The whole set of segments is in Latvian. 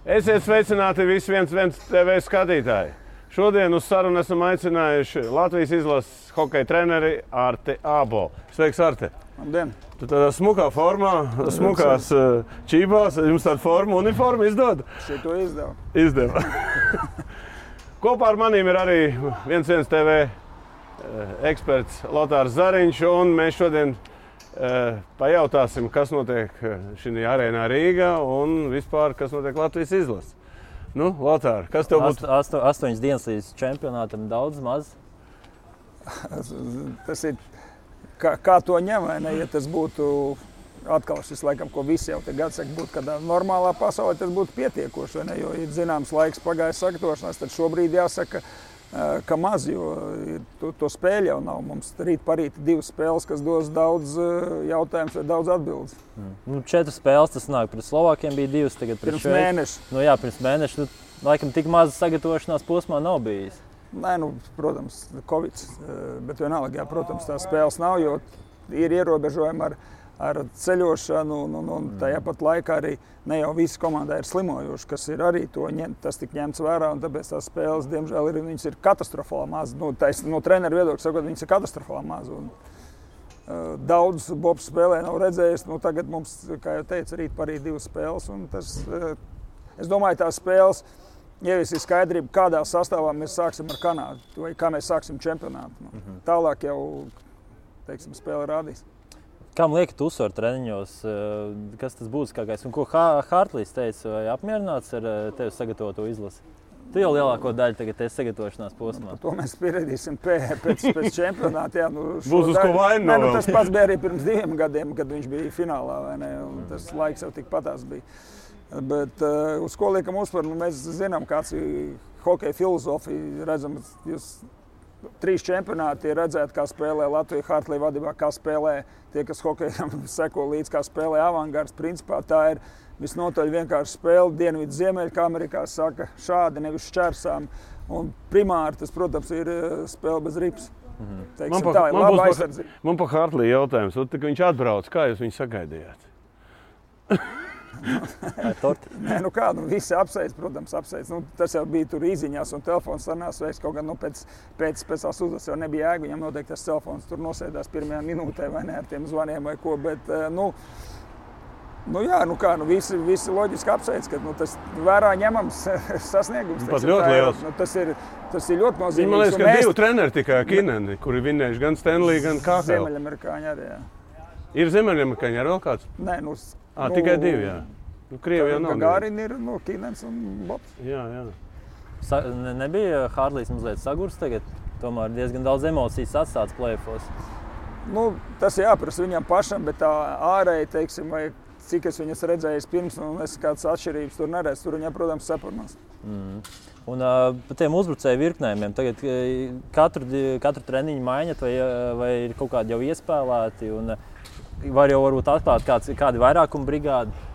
Esiet sveicināti visi 1 TV skatītāji. Šodien uz sarunu esam aicinājuši Latvijas izlases hokeja treneri Arti Ābolu. Sveiks, Arti! Labdien! Tu tādā smukā formā, smukās čībās, jums tāda uniforma izdod? Šito izdevu. Izdeva. Kopā ar manīm ir arī 1 TV eksperts Lotārs Zariņš, un mēs šodien pajautāsim, kas notiek šī arēnā Rīgā un vispār, kas notiek Latvijas izlases. Nu, Lotār, kas tev būtu? 8 dienas līdz čempionātam, daudz, maz? Tas ir, kā to ņem, vai ne? Ja tas būtu atkal šis laikam, ko visi jau te gadu saka, būtu kādā normālā pasaulē, tas būtu pietiekoši, vai ne? Jo ir zināms laiks pagājis sagatavošanās, tad šobrīd jāsaka, ka maz, jo to spēļu jau nav. Mums rīt parīt 2 spēles, kas dos daudz jautājumus vai daudz atbildes. 4 spēles, tas nāk. Pret Slovākiem bija 2, tagad pret Šveici. Mēneša. Nu jā, pirms mēneša. Laikam tik maz sagatavošanās posmā nav bijis. Nē, protams, Covid, bet vienalga, jā, protams, tās spēles nav, jo ir ierobežojumi ar ceļošanu, un tajā pat laikā arī ne jau visi komandā ir slimojuši, kas ir arī tas tik ņemts vērā, un tāpēc tās spēles, diemžēl, viņas ir katastrofāli maz. No treneru viedokļa sakot, viņas ir katastrofāli maz. Daudz Bobs spēlē nav redzējis. Tagad mums, kā jau teicu, rīt parīt 2 spēles, un es domāju, tās spēles ieviesīs skaidrību, kādā sastāvā mēs sāksim ar Kanādu, vai kā mēs sāksim čempionātu. Tālāk jau, teiksim, spēle rādīs. Kam liekat uzsvaru treniņos, kas tas būtiskākais? Un ko Hartlīs teica, vai apmierināts ar tevi sagatavoto izlasi? Tu jau lielāko daļu tagad esi sagatavošanās posmā. To mēs pieredzēsim pēc čempionāta. Jā, Būs uz ko vaina vēl. Tas pats bija arī pirms 2 gadiem, kad viņš bija finālā, vai ne? Un tas laiks jau tikpatās bija. Bet uz ko liekam uzsvaru? Mēs zinām, kāds ir hokeja filozofija. Redzam, jūs 3 čempionāti ir redzēt, kā spēlē Latvija Hartlī vadībā, kā spēlē tie, kas hokejam seko līdz, kā spēlē avangards. Principā tā ir visnotaļ vienkārši spēle. Dienvidu ziemeļu, kā Amerikā saka, šādi, nevis šķērsām. Un primāri tas, protams, ir spēle bez rips. Teiksim, tā ir laba aizsardzība. Man pa Hartlī jautājums. Kad viņš atbrauc, kā jūs viņu sagaidījāt? Nē, visi apsveic, protams, apsveic. Tas jau bija tur īziņās un telefons sarunās veiks. Kaut gan pēc tās uzvaras jau nebija jēga. Viņam noteikti tas telefons tur nosēdās pirmajā minūtē vai ne ar tiem zvaniem vai ko. Bet, visi loģiski apsveic, ka tas vērā ņemams sasniegums. Pat ļoti liels. Tas ir ļoti nozīmīgs. Man liekas, ka 2 treneri tikai Kineni, kuri vinnējuši gan Stanley, gan KHL. Ziemeļamerikāņi arī, jā. Ir Ziemeļamerikāņi ar vēl kāds? Nē, tikai 2, jā. Krievijā nav. Gagarin ir Kinens un Bobs. Jā. Nebija Hartlīs mazliet sagurs tagad? Tomēr diezgan daudz emocijas atstāts play-offos. Tas jāprasa viņam pašam, bet tā ārēji, teiksim, vai cik es viņas redzējis pirms, un es kādas atšķirības tur neredzu. Tur viņam, protams, saparnās. Un par tiem uzbrucēju virknējumiem, tagad katru treniņu maiņat vai ir kaut kādi jau iespēlēti? Un var jau varbūt atklāt kādi vairākuma brigādi?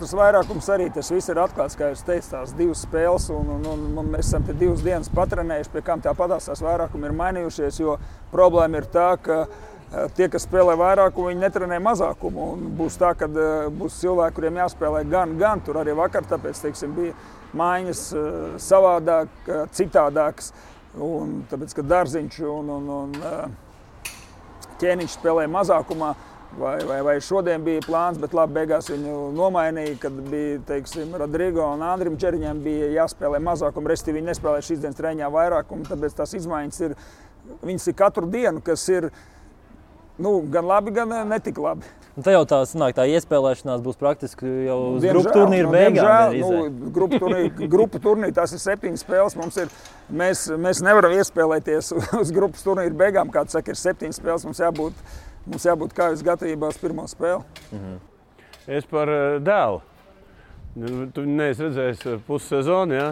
Tas vairākums arī, tas viss ir atklāts, kā jūs teicat, tās 2 spēles, un mēs esam te 2 dienas patrenējuši, pie kām tāpatās tās vairākumi ir mainījušies, jo problēma ir tā, ka tie, kas spēlē vairākumu, viņi netrenē mazākumu, un būs tā, ka būs cilvēki, kuriem jāspēlē gan, tur arī vakar, tāpēc, teiksim, bija maiņas savādāk, citādākas, un tāpēc, ka Darziņš un Ķēniņš spēlē mazākumā, vai šodien bija plāns, bet labi, beigās viņu nomainīja, kad bija, teiksim, Rodrigo un Andrim Čeriņam bija jāspēlē mazākumu, restīvi viņi nespēlē šīs dienas treniņā vairākumu, tāpēc tās izmaiņas viņas ir katru dienu, kas ir, gan labi, gan netik labi. Te jau tā iespēlēšanās būs praktiski jau uz grupu turnīru beigām. Grupu turnīri, tās ir 7 spēles. Mēs nevaram iespēlēties uz grupas turnīru beigām, kā saka, ir 7 spēles, mums jābūt kājas gatavībās pirmo spēli. Es par dēlu. Tu neesi redzējis pussezonu, jā?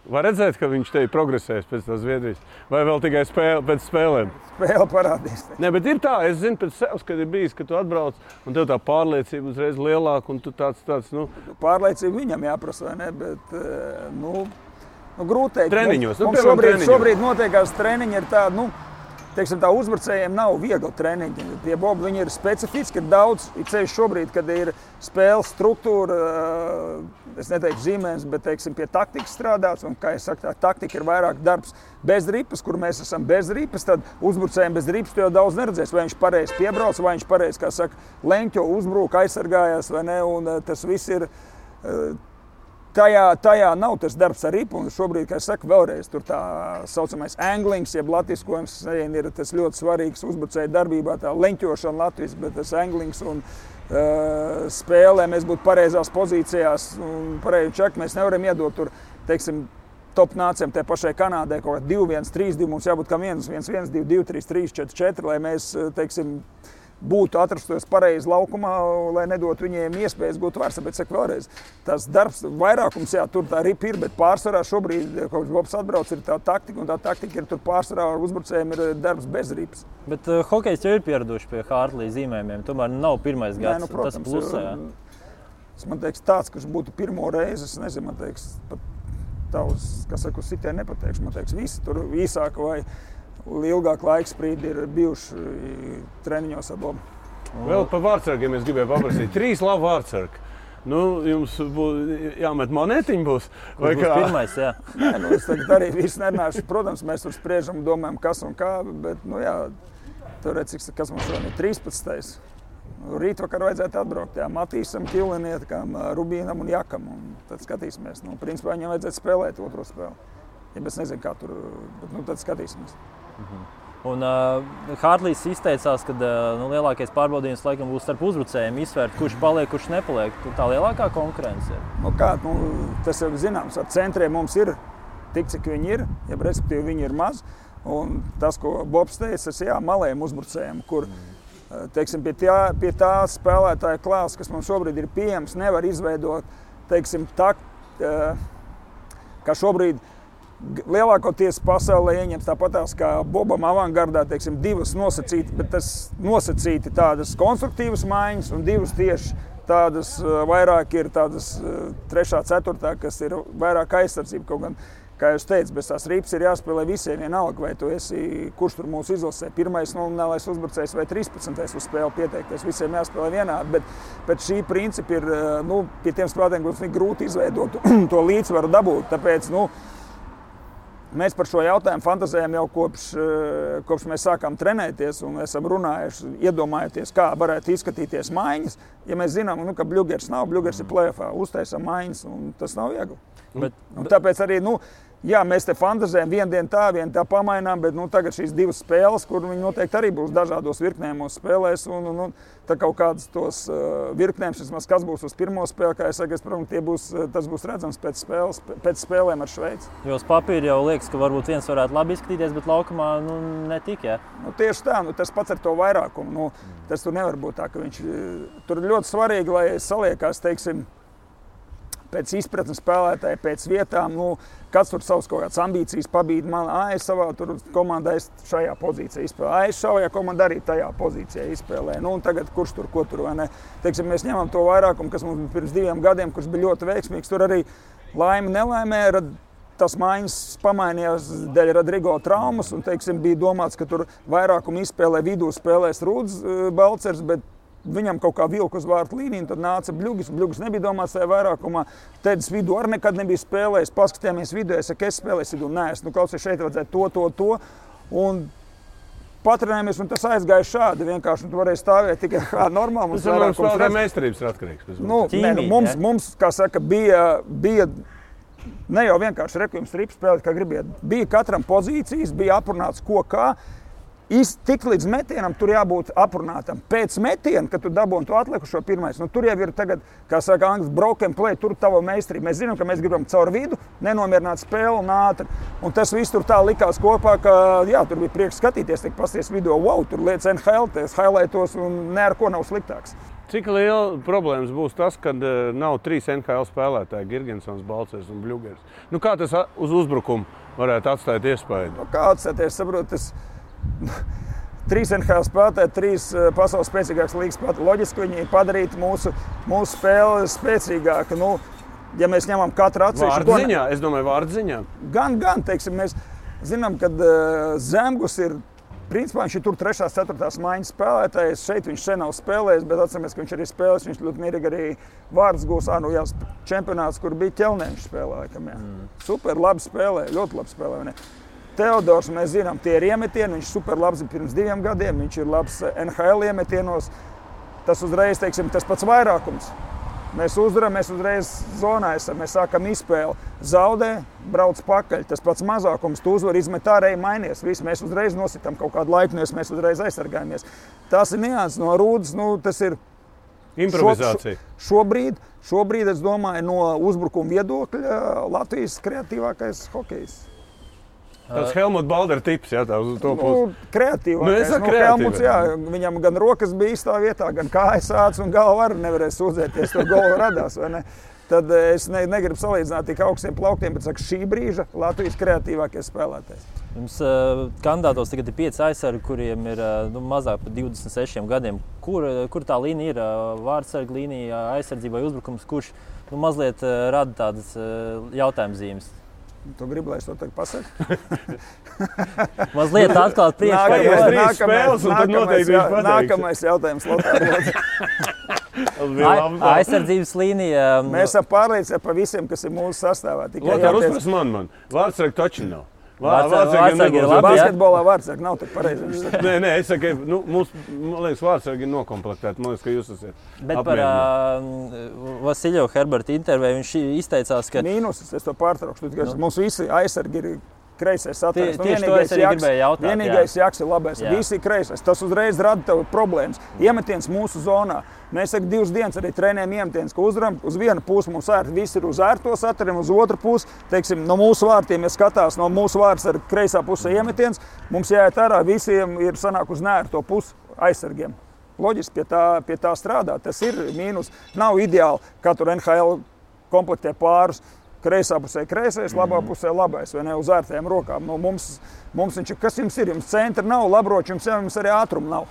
Var redzēt, ka viņš te ir progresējis pēc tās Zviedrijas? Vai vēl tikai pēc spēlēm? Spēle parādīs. Nē, bet ir tā, es zinu pēc sevis, kad ir bijis, ka tu atbrauc un tev tā pārliecība uzreiz lielāka un tu tāds. Pārliecība viņam jāprasa, vai ne? Bet, grūti teikt. Treniņos. Mums šobrīd notiekās treniņi ir tādi, teiksim, tā uzbrucējiem nav viegli treniņi. Tie bobi, viņi ir specifiski, ir daudz, ir ceļš šobrīd, kad ir spēles struktūra, es neteiktu zīmēs, bet, teiksim, pie taktikas strādāts, un, kā es saku, tā taktika ir vairāk darbs bez ripas, kur mēs esam bez ripas, tad uzbrucējiem bez ripas tu jau daudz neredzēs, vai viņš pareizi piebrauc, vai viņš pareizi, kā saka, leņķo, uzbrūk, aizsargājās, vai ne, un tas viss ir, tajā nav tas darbs ar ripu, un šobrīd, kā es saku, vēlreiz tur tā saucamais anglings, jeb latviskojums, ir tas ļoti svarīgs uzbrucēju darbībā, tā leņķošana latviski, bet tas anglings un spēlē mēs būtu pareizās pozīcijās un pareizi čak, mēs nevaram iedot tur, teiksim, top nācijām te pašai Kanādai kaut kā 2-1, 3-2, mums jābūt kā 1-1, 2-2, 3-3, 4-4, lai mēs, teiksim, būtu atrastos pareizi laukumā, lai nedotu viņiem iespējas būt vairs. Bet, saku vēlreiz, tas darbs, vairākums, jā, tur tā ripa ir, bet pārsvarā šobrīd, kaut Bobs atbrauc, ir tā taktika, un tā taktika ir tur pārsvarā ar uzbrucējiem ir darbs bez ripas. Bet hokejs jau ir pieraduši pie Hartley zīmējumiem, tomēr nav pirmais gads, nu, protams, tas plusē. Man teiks, tāds, kurš būtu pirmo reizi, es nezinu, man teiks, pat tavs, kas saka, uz sitē nepateikšu, man teiks, visi tur īsāk vai ilgāk laiks sprīdi ir bijuši treniņos ar Bobu. Vēl par vārdsargiem es gribēju paprasīt. 3 labi vārdsargi. Nu, jums būs jāmet monētiņi būs? Vai būs kā? Pirmais, jā. Nē, nu, es tagad arī visu nerunāšu. Protams, mēs tur spriežam, domājam, kas un kā, bet, nu jā, tur redz, kas mums šodien ir 13. Rīt vakar vajadzētu atbraukt, jā, Matīsam, Killinietkam, Rubīnam un Jakam, un tad skatīsimies. Nu, principā viņam vajadzētu spēlēt otro spēli. Ja es nezinu, kā tur, bet, nu, tad skatīsimies. Un Hartleys izteicās, ka lielākais pārbaudījums laikam būs starp uzbrucējiem izsvērt, kurš paliek, kurš nepaliek. Tā lielākā konkurence ir. Nu kā, tas jau zināms, ar centriem mums ir tik, cik viņi ir, ja respektīvi viņi ir maz. Un tas, ko Bobs teica, tas jā, malējiem uzbrucējiem, kur, teiksim, pie tā spēlētāja klāsts, kas mums šobrīd ir pieejams, nevar izveidot, teiksim, kā šobrīd lielākoties pasaulē ieņems tāpatās kā Bobam avangardā, teiksim, 2 nosacīti, bet tas nosacīti tādas konstruktīvas maiņas un 2 tieši tādas vairāk ir tādas 3., 4., kas ir vairāk aizsardzība. Kaut gan, kā jūs teicat, bez tās ripas ir jāspēlē visiem vienalga, vai tu esi, kurš tur mūsu izlasē, 1. nominālais uzbrucējs vai 13. uz spēli pieteikties, visiem jāspēlē vienādi, bet šī principi ir, pie tiem spēlētājiem būs grūti izveidot to līdzsvaru dabūt, tāpēc, mēs par šo jautājumu fantazējam jau kopš mēs sākām trenēties un esam runājuši, iedomājoties, kā varētu izskatīties maiņas. Ja mēs zinām, ka Bļugers nav, Bļugers ir play-offā, uztaisam maiņas un tas nav viegli. Un tāpēc arī, jā, mēs te fantazējam vienu tā pamainām, bet tagad šīs 2 spēles, kur viņi noteikti arī būs dažādos virknējumos spēlēs un tā kaut kādas tos virknējumus, vismaz kas būs uz pirmo spēli, kā es saku, tas būs redzams pēc spēlēm ar Šveici. Jo uz papīra jau liekas, ka varbūt viens varētu labi izskatīties, bet laukumā netik, jā? Tieši tā, tas pats ar to vairākumu. Tas tur nevar būt tā, ka viņš tur ir ļoti svarīgi, lai saliekās, teiksim, pēc izpratnes spēlētāji, pēc vietām, kāds tur savas kaut kādas ambīcijas pabīd man, es savā tur komandā es šajā pozīcijā izspēlēju, es savajā komandā arī tajā pozīcijā izspēlēju. Un tagad kurš tur, ko tur, vai ne? Teiksim, mēs ņemam to vairākumu, kas mums pirms 2 gadiem, kurš bija ļoti veiksmīgs, tur arī laime nelaimē, tas maiņas pamainījās dēļ Rodrigo traumas, un, teiksim, bija domāts, ka tur vairākumu izspēlē vidū spēlēs Rūds Balcers, bet viņam kaut kā vilka uz vārtu līniju, tad nāca Bļugis. Bļugis nebija domāts tajā vairākumā. Tēdis vidū arī nekad nebija spēlējis. Paskatījāmies vidū, es saku, es spēlēju vidū. Nē, es klausies, šeit vajadzētu to. Un patrenējamies, un tas aizgāja šādi. Vienkārši tu varēji stāvēt tikai kā normāli. Tas no spēlētāja meistarības ir atkarīgs. Mums, kā saka, bija ne jau vienkārši rekvijums rips spēlēt, kā gribiet. Bija katram pozīcijas, bija aprunāts ko kā. Tik līdz metienam tur jābūt aprunātam. Pēc metiena, kad tu dabūni to atlikušo pirmais, tur jau ir tagad, kā saka angļu, broken play, tur tava meistarība. Mēs zinām, ka mēs gribam caur vidu, nenomierināt spēli un ātri. Un tas viss tur tā likās kopā, ka jā, tur bija prieks skatīties, pasties video, wow, tur lietas NHL, tas highlightos un ne ar ko nav sliktāks. Cik liela problēmas būs tas, kad nav 3 NHL spēlētāji, Girgensons, Balcers un Bļugers? Kā tas uz uzbrukumu varētu atstāt iespēju? Kā atstāt, es saprotu, tas 3 NHL spēlētāji, 3 pasaules spēcīgākas līgas spēlētāji. Loģiski viņi padarītu mūsu spēli spēcīgāku. Ja mēs ņemam katru atsevišķu... Vārdziņā, es domāju, vārdziņā. Gan, teiksim, mēs zinām, ka Zemgus ir Principā viņš ir tur 3. 4. maiņas spēlētājs. Šeit viņš sen nav spēlējis, bet atceramies, ka viņš arī spēlēs. Viņš ļoti mierīgi arī vārds gūs. Čempionāts, kur bija ķelnē, viņš spēlēja. Super, labi spēlē, ļoti labi spēlē. Ne? Teodors, mēs zinām, tie ir iemetieni. Viņš super labs pirms 2 gadiem. Viņš ir labs NHL iemetienos. Tas uzreiz, teiksim, tas pats vairākums. Mēs uzvaram, mēs uzreiz zonā esam, mēs sākam izspēli. Zaudē, brauc pakaļ. Tas pats mazākums, tu uzvar, izmet ārēji, mainies. Visi mēs uzreiz nositām kaut kādu laiku, mēs uzreiz aizsargājamies. Tas ir nianses no Rūdas, tas ir improvizācija. Šobrīd, es domāju, no uzbrukuma viedokļa Latvijas kreatīvākais hokejs. Tas Helmuts Baldera tips, jā, tā uz to pusi. Kreatīvākais. Helmuts, jā, viņam gan rokas bija īstā vietā, gan kājas ācis un galva arī nevarēja sūdzēties, to golu radās, vai ne? Tad es negribu salīdzināt tik augstiem plauktiem, bet saku, šī brīža Latvijas kreatīvākais spēlētājs. Jums kandidātos tagad ir 5 aizsargi, kuriem ir mazāk par 26 gadiem. Kur tā līnija ir? Vārdsarga līnija, aizsardzība vai uzbrukums, kurš mazliet rada tādas jautājuma zīmes? Tu gribi, lai es to tagad pasaku? Mazliet atklāt priekšā. Nākamais jautājums. Aizsardzības līnija. Mēs esam pārliecināti par visiem, kas ir mūsu sastāvā. Lotār, uzpras man. Vārdsargi taču nav. Vārdsargi ir labi, basketbolā vārdsargi nav tik pareizi. Nē, es saku, man liekas, vārdsargi ir nokomplektēti. Man liekas, ka jūs esat apmierināti. Bet par Vasiļevu Herberta interviju viņš izteicās, ka... Mīnusis, es to pārtraukšu. Mums visi aizsargi ir kreisais atvērs. Tieši to es arī gribēju jautāt. Vienīgais Jaks ir labais. Visi kreisais. Tas uzreiz rada tev problēmas. Iemetiens mūsu zonā. Mēs 2 dienas arī trenējam iemetiens, ka uzvaram uz vienu pusi mums ērti. Visi ir uz ērto satariem, uz otru pusi. Teiksim, no mūsu vārtiem, ja skatās, no mūsu vārds ar kreisā pusē iemetiens, mums jāiet ārā, visiem ir sanāk uz nērto pusi aizsargiem. Loģiski pie tā strādā. Tas ir mīnus. Nav ideāli, kā tur NHL komplektē pārus. Kreisā pusē kreisais, labā pusē labais, vai ne, uz ērtajām rokām. Mums viņš ir, kas jums ir? Jums centra nav, labroči, jums arī ātruma nav.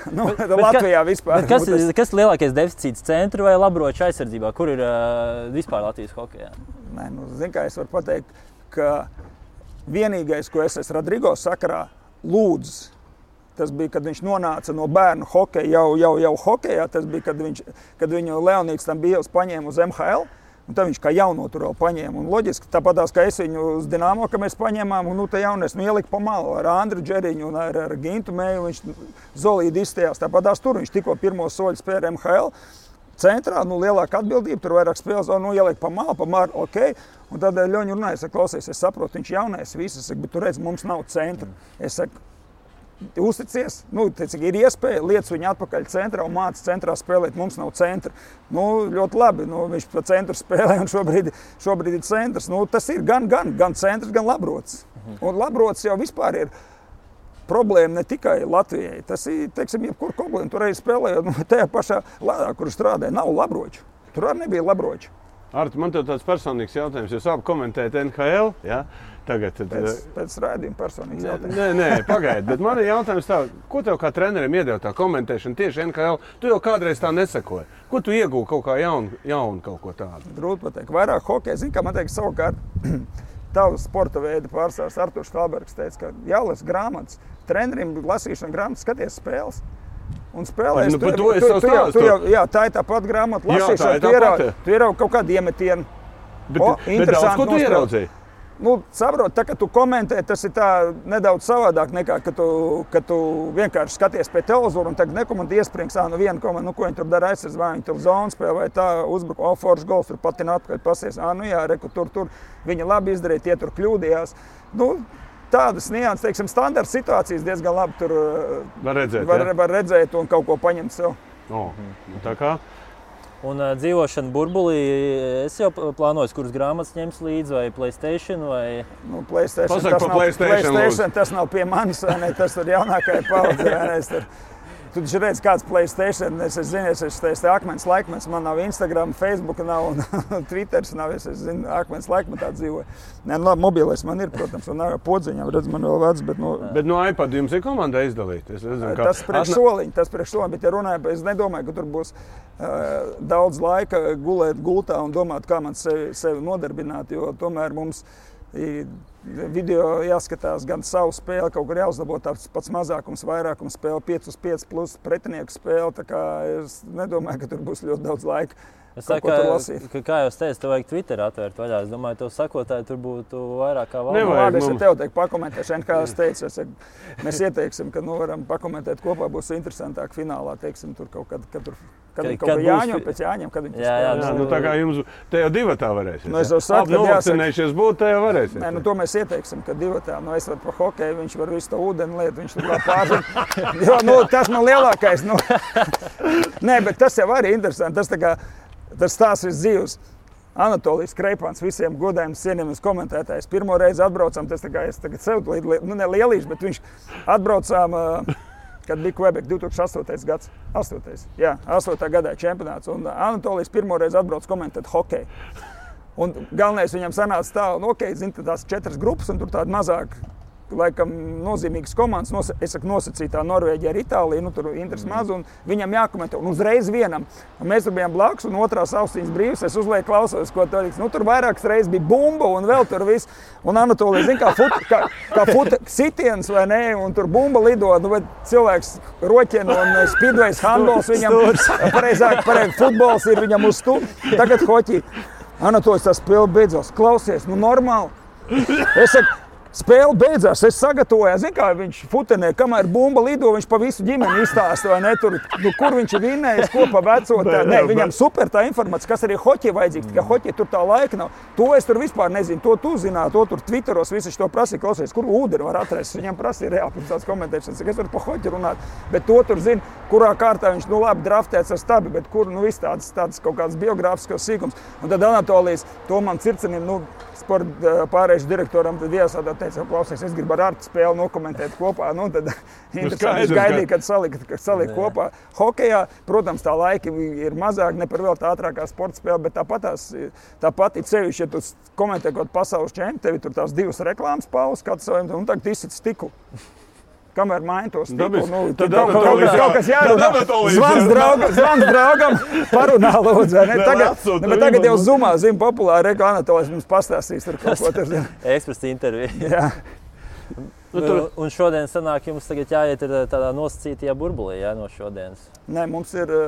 Latvijā vispār. Kas ir lielākais deficīts centra vai labroču aizsardzībā? Kur ir vispār Latvijas hokejā? Nē, zin kā es varu pateikt, ka vienīgais, ko es esmu Rodrigo sakarā lūdzis, tas bija, kad viņš nonāca no bērnu hokeja, jau hokejā, tas bija, kad viņu Leonīds tam bija paņēma uz MHL. Un tad viņš kā jauno tur vēl paņēma. Un loģiski, tāpatās, kā es viņu uz Dinamo, ka mēs paņēmām, un te jaunies ielika pa malu ar Andru Džeriņu un ar Gintu Mēju. Viņš zolīdi izstājās. Tāpatās tur viņš tikko pirmo soļu spēja MHL. Centrā, lielāka atbildība, tur vairāk spēles, ielika pa malu, ok. Un tad Ļoņi runāja, es saku, klausies, es saprotu, viņš jaunais viss, bet tu redz, mums nav centra. Es saku, uzticies, ir iespēja, liec viņu atpakaļ centrā un māca centrā spēlēt, mums nav centra. Ļoti labi, viņš pa centru spēlē un šobrīd ir centrs. Tas ir gan centrs, gan labrots. Un labrots jau vispār ir problēma ne tikai Latvijai. Tas ir, teiksim, jebkur problēma. Tur arī spēlējot, tajā pašā lādā, kur strādāja, nav labroču. Tur arī nebija labroču. Arti, man tev tāds personīgs jautājums. Jūs abi komentējat NHL, ja? Tagad, pēc rādījuma personīgs jautājums. Nē, pagaidi, bet man ir jautājums tā, ko tev kā trenerim iedeva tā komentēšana tieši NHL? Tu jau kādreiz tā nesakoji. Ko tu iegūji kaut kā jaunu kaut ko tādu? Grūti pateikt. Vairāk hokeja, zini, kā man teikt, savukārt tavs sporta veida pārstāvs Arturs Falbergs teica, ka jālas grāmatas. Trenerim lasīšana grāmatas, skaties spēles. Un spēlēs, tā ir tā pat grāmata lasīšana. Tu ieraugi kaut kādu iemetienu. Bet daudz, ko tu ieraudzīji? Saprot, tā, ka tu komentē, tas ir tā nedaudz savādāk nekā, ka tu vienkārši skaties pie televizora un tagad nekomentē iesprings, viena komanda, ko viņi tur dara aizsardz, vai viņi tur zonu spēlē, vai tā uzbruka, foršs gols, tur patina atpakaļ pasies, tur viņi labi izdarīja, tie tur kļūdījās. Tādas nianses, teiksim, standarta situācijas diezgan labi tur var redzēt un kaut ko paņemt sev. Tā kā? Un dzīvošana burbulī, es jau plānoju, kuras grāmatas ņems līdzi, vai PlayStation, vai... PlayStation tas nav pie manis, vai ne, tas tur jaunākai paudze, vai ne, tu taču redz, kāds PlayStation, es zinu, es akmens laikmets, man nav Instagram, Facebook nav, un Twitters nav, es zinu, akmens laikmetā dzīvoju. Mobilais man ir, protams, un podziņām, redz, man vēl vecs, bet... Bet no iPad jums ir komandai izdalīt? Tas priekš soliņ, bet ja runāju, es nedomāju, ka tur būs daudz laika gulēt gultā un domāt, kā man sevi nodarbināt, jo tomēr mums Video jāskatās gan savu spēli, kaut kur jāuzlabo tāds pats mazākums, vairākums spēle, 5-5 plus pretinieku spēle. Tā kā es nedomāju, ka tur būs ļoti daudz laika. Es saku, kā jau es teicu, tev vajag Twitter atvērt vaļā. Es domāju, tev sakotāji tur būtu vairāk kā valda. Labi, es tev teiktu pakomentēšanu, kā es teicu. Mēs ieteiksim, ka varam pakomentēt kopā, būs interesantāk finālā, teiksim, tur kaut kad tur Jāņem pēc Jāņem, kad viņi spēlē. Nu tā kā jums te jau divatā varēsiet. Nu es jau saku, ka novakcinējušies būt, te jau varēsiet. Nē, nu to mēs ieteiksim, ka divatā, nu es varu pa hokeju, viņš var visu to ūdeni lietu, viņš tur vēl pārzina. Jo, nu tas man lielākais, nu. Nē, bet tas jau arī interesanti, tas stāsts viss dzīves. Anatolijas Kreipāns visiem godējiem cienījamies komentētājs. Pirmo reizi atbraucām, tas tā kā es tagad sev ne lielīšu, bet viņš atbraucām, kad bija Quebec 2008. gads. 8. gadā čempionāts. Un Anatolijas pirmo reizi atbrauc komentēt hokeju. Un galvenais viņam sanāca tā, un zin, tās 4 grupas, un tur tāda mazāk, laikam, nozīmīgas komandas, nosacītā Norvēģija ar Itāliju, nu tur interesi maz, un viņam jākomentē, un uzreiz vienam. Un mēs tur bijām blakus, un otrās austiņas brīvas, es uzlieku klausos, ko tur liks. Nu tur vairākas reizes bija bumba, un vēl tur viss. Un Anatolija, zin, kā sitiens, vai ne, un tur bumba lido, nu, bet cilvēks roķien, un speedways, handballs viņam, pareizāk, futbols ir viņam uz stu. Tagad hoķi. Anatolijas tā spēle beidzās. Klausies, nu normāli. Es saku, spēle beidzās, es sagatavoju, zin kā viņš futenē, kamēr bumba lido, viņš pa visu ģimeni izstāsta, vai ne, tur, nu, kur viņš ir vinnējis, ko pa vecotā. Nē, viņam super tā informācija, kas arī hoķi vajadzīgs, tikai hoķi tur tā laika nav. To es tur vispār nezinu, to tu zināt, to tur Twitteros visi to prasīja, klausies, kur ūdeni var atrast. Viņam prasīja reāli pirms tāds komentēšanas, es varu pa hoķi runāt, bet to tur zina, kurā kārtā viņš, nu labi, draftēts ar stabi, bet kur, nu, viss tāds kaut kāds biogrāfiskos sīkums. Un tad Anatolijas, to man circenim, nu, sporta pārējušu direktoram, tad iesādā teica, klausies, es gribu ar Artu spēli nokomentēt kopā. Nu, tad interesanti, es gaidīju, kad salika kopā. Hokejā, protams, tā laika ir mazāk, ne par vēl tā ātrākā sporta spēle, bet tāpat ir sevišķi, ja tu komentē kaut pasaules čempi, tevi tur tās 2 reklāmas pauzes, kāds saviem, un tagad izsit stiklu. Kamēr maina to stiklu, nu, kaut kas jārunā. Zvans draugam, parunā lūdzu. Tagad jau Zoomā, zinu, populāri Anatolijas mums pastāstīs tur kaut ko tur. Ekspresa intervija. Jā. Un šodien sanāk, jums tagad jāiet tādā nosacītajā burbulī, jā, no šodienas. Nē, mums ir...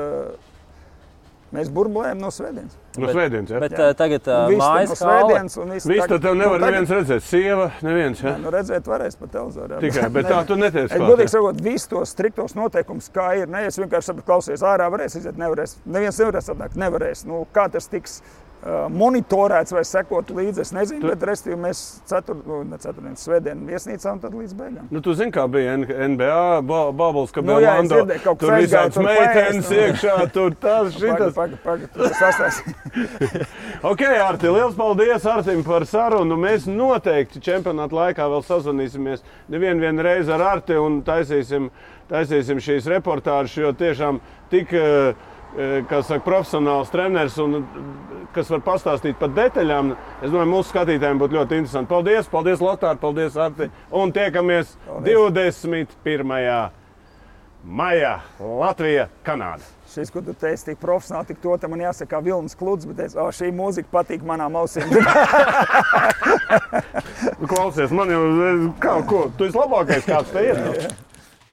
Mēs burbulējam no svētdienas. No svētdienas, jā. Bet tagad mājas hāle. Viss tad tev nevar neviens redzēt. Sieva, neviens, jā? Nu redzēt varēs pa televizoru. Tikai, bet tā tu neteici klāt. Godīgi sakot, visus tos striktos noteikumus, kā ir. Ne, es vienkārši sapratu, klausies, ārā varēs iziet, nevarēs. Neviens nevarēs atnākt, nevarēs. Nu, kā tas tiks monitorēts vai sekot līdzi, es nezinu, bet restīvi mēs svētdien viesnīcā un tad līdz beigām. Nu, tu zini, kā bija NBA Bubbles, ka bija Lando, tur visāds meitenes iekšā, tur tas, šitas. Pagaid, sastāst. Ok, Arti, liels paldies Artim par sarunu. Mēs noteikti čempionāta laikā vēl sazvanīsimies nevienu reizi ar Arti un taisīsim šīs reportāžas, jo tiešām tik... kā saka, profesionāls treneris un kas var pastāstīt par detaļām. Es domāju, mūsu skatītājiem būtu ļoti interesanti. Paldies Lotār, paldies Arti. Un tiekamies 21. maijā Latvija, Kanāda. Šis, ko tu teici, tik profesionāli, tik to, te man jāsaka Vilnis Kluds, bet teicu, šī mūzika patīk manām ausīm. Klausies, man jau, tu esi labākais, kāds te ir.